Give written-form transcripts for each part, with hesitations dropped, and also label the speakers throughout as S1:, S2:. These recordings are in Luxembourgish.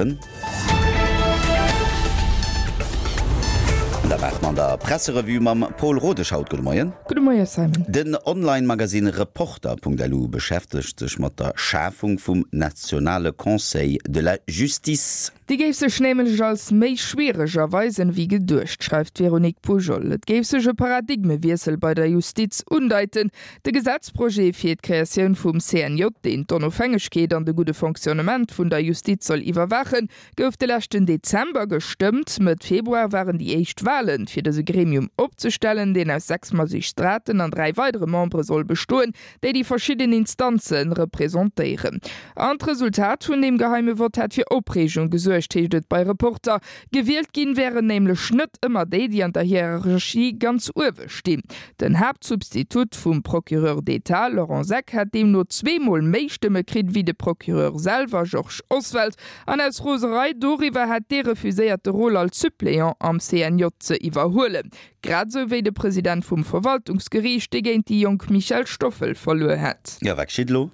S1: 7. An da maache mer an der Presserevue mam Paul Rodesch haut. Gudde Moien.
S2: Gudde Moie Simon.
S1: Den Online-Magasinn Reporter.lu beschäftegt sech mat der Schafung vum nationale Conseil de la Justice.
S2: Déi géif sech nämlech als méi schwiereg erweisen, wéi geduecht, schreift d'Véronique Poujol. Et géif sech e Paradigmewiessel bei der Justiz undeiten. De Gesetzprojet fir d'Kreatioun vum CNJ, deen d'Onofhängegkeet an de gudde Fonctionnement vun der Justiz soll iwwerwaachen, gouf de leschten Dezember gestëmmt. Mëtt Februar waren déi éischt Walen, fir dëse Gremium opzestellen, deen aus 6 Magistraten an 3 weidere Membere soll bestoen, déi déi verschidden Instanze representéieren. An d'Resultat vun deem geheime Vott hätt fir Opreegung gesuergt, heescht et bei Reporter. Gewielt ginn wären nämlech net ëmmer déi, déi an der Hierarchie ganz uewe stinn. Den Haaptsubstitut vum Procureur d'État, Laurent Seck, hätt deemno zweemol méi Stëmme kritt wéi de Procureur selwer, Georges Oswald. An aus Roserei doriwwer hätt dee refuséiert, de Rôle als Suppléant am CNJ ze iwwerhuelen. Grad esou wéi de President vum Verwaltungsgeriicht, dee géint déi jonk Michèle Stoffel verluer hätt.
S1: Jo, wat geschitt elo?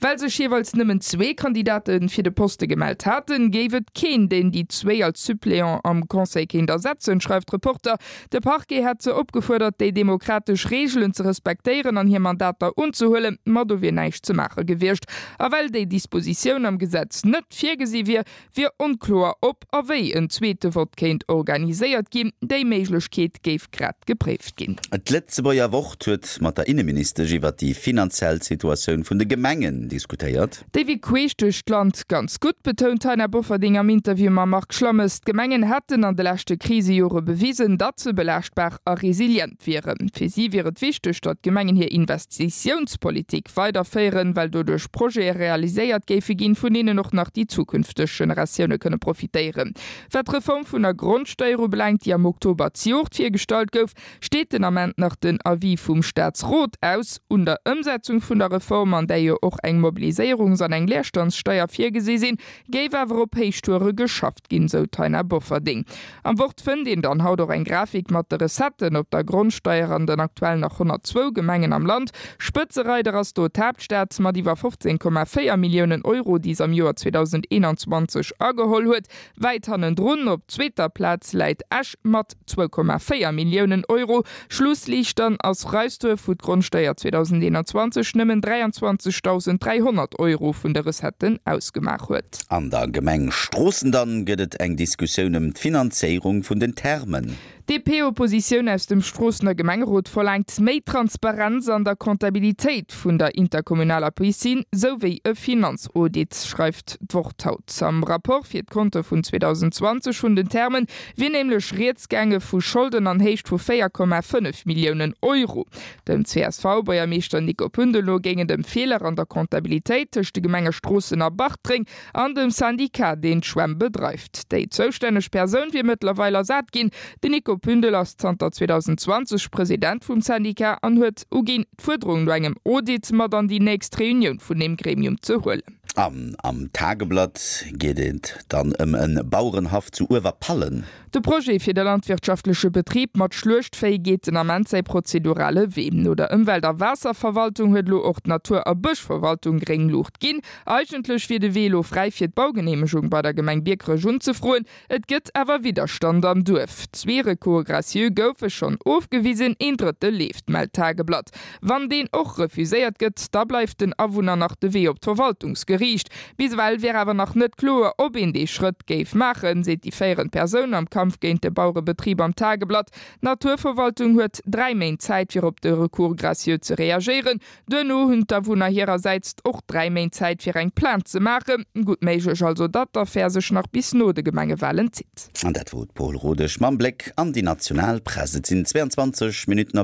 S2: Well sech jeeweils nëmmen zwee Kandidate fir de Poste gemellt haten, géif et keen, deen déi zwéi als Suppléant am Conseil kéint ersetzen, schreift Reporter. De Parquet hätt se opgefuerdert, déi demokratesch Reegelen ze respektéieren an hir Mandater unzehuelen, ma do wier näischt ze maache gewiescht. A well déi Dispositioun am Gesetz net virgesi wier, wier onkloer, ob a wéi en zweete Vott kéint organiséiert ginn. Déi Méiglechkeet géif grad gepréift ginn.
S1: D'Lëtzebuerger Wort huet mat der Inneministesch iwwer déi finanziell Situatioun vun de Gemengen diskutéiert.
S2: Déi wier queesch duerch d'Land ganz gutt, betount d'Taina Bofferding am Interview mam Marc Schlammes. D'Gemengen hätten an de leschte Krisejore bewisen, datt se belaaschtbar a resilient wieren. Fir si wier et wichteg, datt d'Gemengen hir Investitiounspolitik weiderféieren, well doduerch Projete realiséiert géife ginn, vun deenen och nach déi zukünfteg Generatioune kënne profitéieren. Wat d'Reform vun der Grondsteier ubelaangt, déi am Oktober zejoert virgestallt gouf, steet den Ament nach den Avis vum Staatsrot aus. Un der Ëmsetzung vun der Reform, an där jo och eng Mobiliséierungs an eng Leerstandssteier virgesi sinn, géif awer op Héichtoure geschafft ginn, sou d'Taina Bofferding. Am Wort fënnt een dann haut och eng Grafik mat de Recetten op der Grondsteier an den aktuell nach 102 Gemengen am Land. Spëtzereider ass do d'Haaptstad mat iwwer 15,4 Milliounen Euro, déi s'am Joer 2021 ageholl huet. Wäit hannendrun op zweeter Plaz läit Esch mat 2,4 Milliounen Euro. Schlussliicht dann ass Reisduerf, wou d'Grondsteier 2021 nëmmen 23.300 Euro vun de Recetten ausgemaach huet.
S1: An der Gemeng Stroossen dann gëtt et eng Diskussioun ëm d'Finanzéierung vun den Thermen.
S2: D'DP-Oppositioun aus dem Stroossener Gemengerot verlaangt méi Transparenz an der Comptabilitéit vun der interkommunaler Piscine, sou wéi e Finanzaudit, schreift d'Wort haut. Am Rapport fir d'Konte vun 2020 vun den Thermen wier nämlech rieds gaange vu Scholden an Héicht vu 4,5 Milliounen Euro. Dem CSV-Buergermeeschter Nico Pündel no géing et ëm Feeler an der Comptabilitéit tëscht de Gemenge Stroossen a Bartreng an dem Syndicat, deen d'Schwämm bedreift. Déi zoustänneg Persoun wier mëttlerweil ersat ginn. Den Nico Pündel ass zanter 2020 President vum Syndicat an huet uginn, d'Fuerderung no engem Audit mat an déi nächst Reunioun vun deem Gremium ze huelen.
S1: An am Tageblatt geet et dann ëm e Bauerenhaff zu Uewerpallen.
S2: De Projet fir de landwirtschaftleche Betrib mat Schluechtvéi geet den Ament säi prozedurale Wee. No der Ëmwelt a Waasserverwaltung huet elo och d'Natur a Bëschverwaltung gréng Luucht ginn. Eigentlech wier de Wee elo fräi fir d'Baugeneemegung bei der Gemeng Biekerech unzefroen. Et gëtt awer Widderstand am Duerf. Zwee Recours gracieux goufe schonn ofgewisen, een drëtte leeft, mellt d'Tageblatt. Wann deen och refuséiert gëtt, da bleift den Awunner nach de Wee op d'Verwaltungsgeriicht. Bis ewell wier awer nach net kloer, ob een dee Schrëtt géif maachen, seet déi féierend Persoun am Kampf géint de Bauerebetrib am Tageblatt. D'Naturverwaltung huet 3 Méint Zäit, fir op de Recours gracieux ze reagéieren. Duerno hunn d'Awunner hirersäits och 3 Méint Zäit fir eng Plainte ze maachen. Gutt méiglech also, datt d'Affär sech nach bis no de Gemengewalen zitt.
S1: An dat wor d'Paul Rodesch mam Bléck an déi national Press. Et sinn 22 Minutten op 8.